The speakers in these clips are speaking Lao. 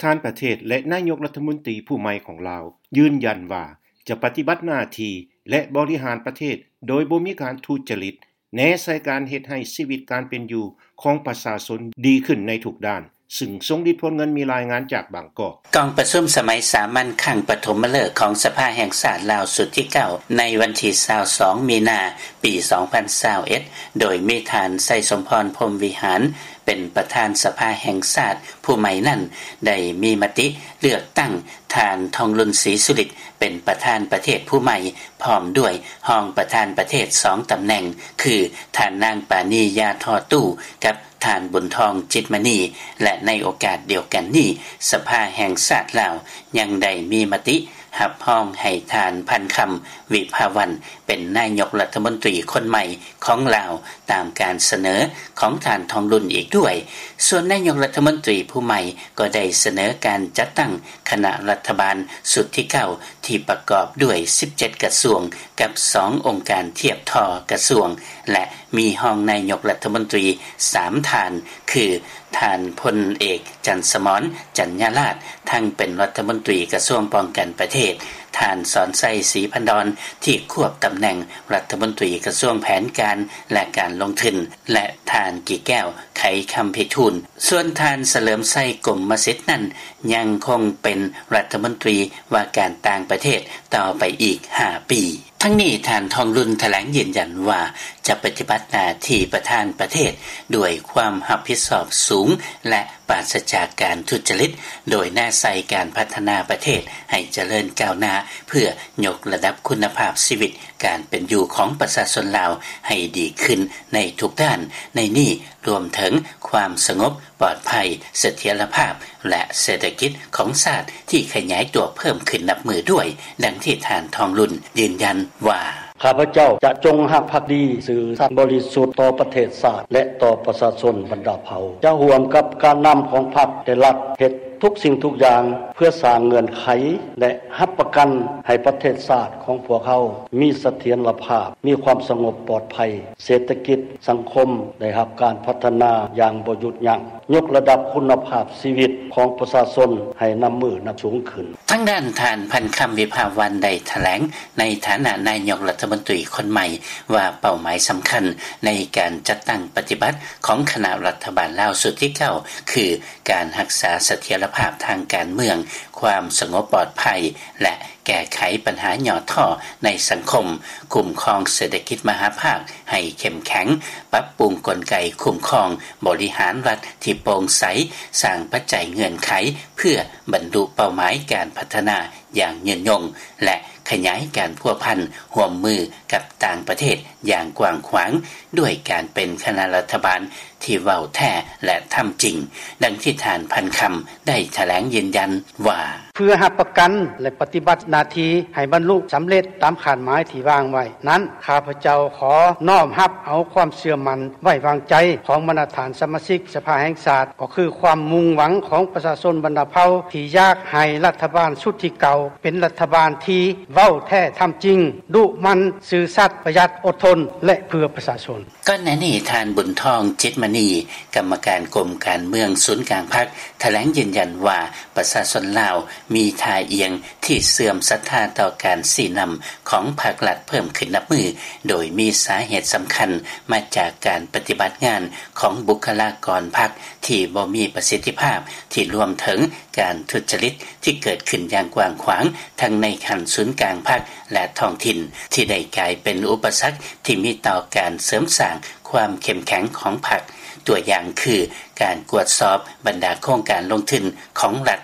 ທ່ານປະເທດ ແລະ ນາຍົກລັດຖະມົນຕີຜູ້ໃໝ່ຂອງລາວ ຢືນຢັນວ່າຈະປະຕິບັດໜ້າທີ່ ແລະ ບໍລິຫານປະເທດໂດຍບໍ່ມີການທຸຈະລິດ, ແນໃສ່ການເຮັດໃຫ້ຊີວິດການເປັນຢູ່ຂອງປະຊາຊົນດີຂຶ້ນໃນທຸກດ້ານ, ຊຶ່ງສົ່ງລິດຜົນເງິນມີລາຍງານຈາກບາງກອກ. ກອງປະຊຸມສະໄໝສາມັນຄັ້ງປະຖົມມະເລີກຂອງສະພາແຫ່ງຊາດລາວຊຸດທີເກົ້າ ໃນວັນທີຊາວສອງ ມີນາ ປີສອງພັນຊາວເອັດ ໂດຍມີທ່ານ ໄຊສົມພອນ ພົມວິຫານ ເປັນປະທານສະພາແຫ່ງຊາດຜູ້ໃໝ່ນັ້ນ ໄດ້ມີມະຕິເລືອກຕັ້ງທ່ານ ທອງລຸນ ສີສຸລິດ ເປັນປະທານປະເທດຜູ້ໃໝ່ ພ້ອມດ້ວຍຮອງປະທານປະເທດສອງຕຳແໜ່ງ ຄື ທ່ານນາງ ປານີ ຢາທໍ່ຕູ້ ກັບ ທ່ານ ບຸນທອງ ຈິດມະນີ ແລະ ໃນໂອກາດດຽວກັນນີ້ ສະພາແຫ່ງຊາດລາວຍັງໄດ້ມີມະຕິຮັບຮອງໃຫ້ທ່ານ ພັນຄຳ ວິພາວັນ ເປັນນາຍົກລັດຖະມົນຕີຄົນໃໝ່ຂອງລາວ ຕາມການສະເໜີຂອງທ່ານ ທອງລຸນ ອີກດ້ວຍ. ສ່ວນນາຍົກລັດຖະມົນຕີຜູ້ໃໝ່ກໍໄດ້ສະເໜີການຈັດຕັ້ງຄະນະລັດຖະບານຊຸດທີເກົ້າ ທີ່ປະກອບດ້ວຍສິບເຈັດກະຊວງ ກັບສອງອົງການທຽບທໍ່ກະຊວງ ແລະ ມີຮອງນາຍົກລັດຖະມົນຕີສາມທ່ານ ຄື ທ່ານພົນເອກ ຈັນສະໝອນ ຈັນຍາລາດ ທັງເປັນລັດຖະມົນຕີກະຊວງປ້ອງກັນປະເທດ, ທ່ານ ສອນໄຊ ສີພັນດອນ ທີ່ຄວບຕຳແໜ່ງລັດຖະມົນຕີກະຊວງແຜນການ ແລະ ການລົງທຶນ ແລະ ທ່ານ ກີແກ້ວ ໄຂຄຳພິທູນ. ສ່ວນທ່ານ ສະເຫຼີມໄຊ ກົມມະສິດ ນັ້ນ ຍັງຄົງເປັນລັດຖະມົນຕີວ່າການຕ່າງປະເທດຕໍ່ໄປອີກຫ້າປີ. ທັງນີ້ ທ່ານ ທອງລຸນ ຖະແຫຼງຢືນຢັນວ່າ ຈະປະຕິບັດໜ້າທີ່ປະທານປະເທດດ້ວຍຄວາມຮັບຜິດຊອບສູງ ແລະ ປາສະຈາກການທຸດຈະລິດ, ໂດຍແນໃສ່ການພັດທະນາປະເທດໃຫ້ຈະເລີນກ້າວໜ້າ ເພື່ອຍົກລະດັບຄຸນນະພາບຊີວິດການເປັນຢູ່ຂອງປະຊາຊົນລາວໃຫ້ດີຂຶ້ນໃນທຸກດ້ານ, ໃນນີ້ລວມເຖິງຄວາມສະຫງົບ ປອດໄພ, ສະຖຽນລະພາບ ແລະ ເສດຖະກິດຂອງຊາດທີ່ຂະຫຍາຍຕົວເພີ່ມຂຶ້ນນັບມື້ດ້ວຍ, ດັ່ງທີ່ທ່ານ ທອງລຸນ ຢືນຢັນວ່າ: ຂ້າພະເຈົ້າຈະຈົງຮັກພັກດີ, ຊື່ສັດບໍລິສຸດຕໍ່ປະເທດຊາດ ແລະ ຕໍ່ປະຊາຊົນບັນດາເຜົ່າ, ຈະຮ່ວມກັບການນຳຂອງພັກ ແລະ ລັດ ເຮັດທຸກສິ່ງທຸກຢ່າງ ເພື່ອສ້າງເງື່ອນໄຂ ແລະ ຮັບປະກັນໃຫ້ປະເທດຊາດຂອງພວກເຮົາມີສະຖຽນລະພາບ, ມີຄວາມສະຫງົບປອດໄພ, ເສດຖະກິດ ສັງຄົມໄດ້ຮັບການພັດທະນາຢ່າງບໍ່ຢຸດຢັ້ງ, ຍົກລະດັບຄຸນນະພາບຊີວິດຂອງປະຊາຊົນໃຫ້ນັບມື້ນັບສູງຂຶ້ນ. ທາງດ້ານທ່ານ ພັນຄຳ ວິພາວັນ ໄດ້ຖະແຫຼງໃນຖານະນາຍົກລັດຖະມົນຕີຄົນໃໝ່ວ່າ ເປົ້າໝາຍສຳຄັນໃນການຈັດຕັ້ງປະຕິບັດຂອງຄະນະລັດຖະບານລາວຊຸດທີເກົ້າ ຄື ການຮັກສາສະຖຽນລະພາບທາງການເມືອງ, ຄວາມສະຫງົບປອດໄພ ແລະ ແກ້ໄຂບັນຫາຫຍໍ້ທໍ້ໃນສັງຄົມ, ຄຸ້ມຄອງເສດຖະກິດມະຫາພາກໃຫ້ເຂັ້ມແຂງ, ປັບປຸງກົນໄກຄຸ້ມຄອງບໍລິຫານລັດທີ່ໂປ່ງໃສ, ສ້າງປັດໄຈເງື່ອນໄຂເພື່ອບັນລຸເປົ້າໝາຍການພັດທະນາຢ່າງຍືນຍົງ ແລະ ຂະຫຍາຍການພົວພັນຮ່ວມມືກັບຕ່າງປະເທດຢ່າງກວ້າງຂວາງ ດ້ວຍການເປັນຄະນະລັດຖະບານທີ່ເວົ້າແທ້ ແລະ ທຳຈິງ, ດັ່ງທີ່ທ່ານ ພັນຄຳ ໄດ້ຖະແຫຼງຢືນຢັນວ່າ: ເພື່ອຮັບປະກັນ ແລະ ປະຕິບັດໜ້າທີ່ໃຫ້ບັນລຸສຳເລັດຕາມຄາດໝາຍທີ່ວາງໄວ້ນັ້ນ, ຂ້າພະເຈົ້າຂໍນ້ອມຮັບເອົາຄວາມເຊື່ອໝັ້ນໄວ້ວາງໃຈຂອງບັນດາທ່ານສະມາຊິກສະພາແຫ່ງຊາດ, ກໍຄືຄວາມມຸ່ງຫວັງຂອງປະຊາຊົນບັນດາເຜົ່າ ທີ່ຢາກໃຫ້ລັດຖະບານຊຸດທີເກົ້າເປັນລັດຖະບານທີ່ເວົ້າແທ້ທຳຈິງ, ດຸໝັ່ນ, ຊື່ສັດ, ປະຢັດ, ອົດທົນ ແລະ ເພື່ອປະຊາຊົນ. ກ່ອນໜ້ານີ້ ທ່ານ ບຸນທອງ ຈິດມະນີ ກຳມະການກົມການເມືອງສູນກາງພັກ ຖະແຫຼງຢືນຢັນວ່າ ປະຊາຊົນລາວມີທ່າອ່ຽງທີ່ເຊື່ອມສັດທາຕໍ່ການຊີ້ນຳຂອງພັກລັດເພີ່ມຂຶ້ນນັບມື້, ໂດຍມີສາເຫດສຳຄັນມາຈາກການປະຕິບັດງານຂອງບຸກຄະລາກອນພັກທີ່ບໍ່ມີປະສິດທິພາບ, ທີ່ລວມເຖິງການທຸດຈະລິດທີ່ເກີດຂຶ້ນຢ່າງກວ້າງຂວາງ ທັງໃນຂັ້ນສູນກາງພັກ ແລະ ທ້ອງຖິ່ນ, ທີ່ໄດ້ກາຍເປັນອຸປະສັກທີ່ມີຕໍ່ການເສີມສ້າງ ຄວາມເຂັ້ມແຂງຂອງພັກ, ຕົວຢ່າງຄື ການກວດສອບບັນດາໂຄງການລົງທຶນຂອງລັດ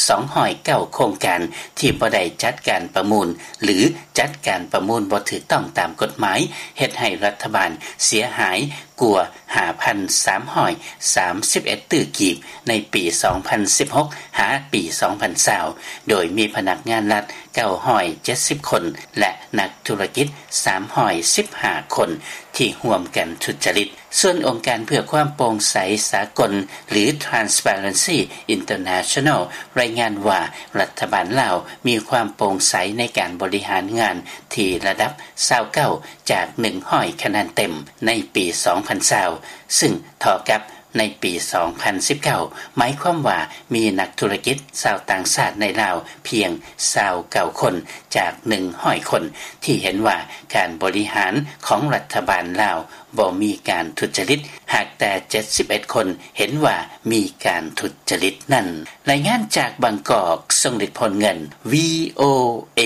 ສອງຮ້ອຍເກົ້າໂຄງການ ທີ່ບໍ່ໄດ້ຈັດການປະມູນ ຫຼື ຈັດການປະມູນບໍ່ຖືກຕ້ອງຕາມກົດໝາຍ, ເຮັດໃຫ້ລັດຖະບານເສຍຫາຍກວ່າ ຫ້າພັນສາມຮ້ອຍສາມສິບເອັດຕື້ກີບ ໃນປີສອງພັນສິບຫົກ ຫາປີສອງພັນຊາວ ໂດຍມີພະນັກງານລັດ ເກົ້າຮ້ອຍເຈັດສິບຄົນ ແລະ ນັກທຸລະກິດ ສາມຮ້ອຍສິບຫ້າຄົນ ທີ່ຮ່ວມກັນທຸດຈະລິດ. ສ່ວນອົງການເພື່ອຄວາມໂປ່ງໃສສາກົນ ຫຼື Transparency International ລາຍງານວ່າ ລັດຖະບານລາວມີຄວາມໂປ່ງໃສໃນການບໍລິຫານງານທີ່ລະດັບ ຊາວເກົ້າ ຈາກ ໜຶ່ງຮ້ອຍຄະແນນເຕັມ ໃນປີສອງພັນຊາວ ຊຶ່ງເທົ່າກັບ ໃນປີ ສອງພັນສິບເກົ້າ ໝາຍຄວາມວ່າມີນັກທຸລະກິດຊາວຕ່າງຊາດໃນລາວພຽງ ຊາວເກົ້າຄົນ ຈາກ ໜຶ່ງຮ້ອຍຄົນ ທີ່ເຫັນວ່າການບໍລິຫານຂອງລັດຖະບານລາວບໍ່ມີການທຸດຈະລິດ ຫາກແຕ່ ເຈັດສິບເອັດຄົນ ເຫັນວ່າມີການທຸດຈະລິດນັ້ນ. ລາຍງານຈາກບາງກອກ ຊົງລິດ ໂພນເງິນ ວີໂອເອ.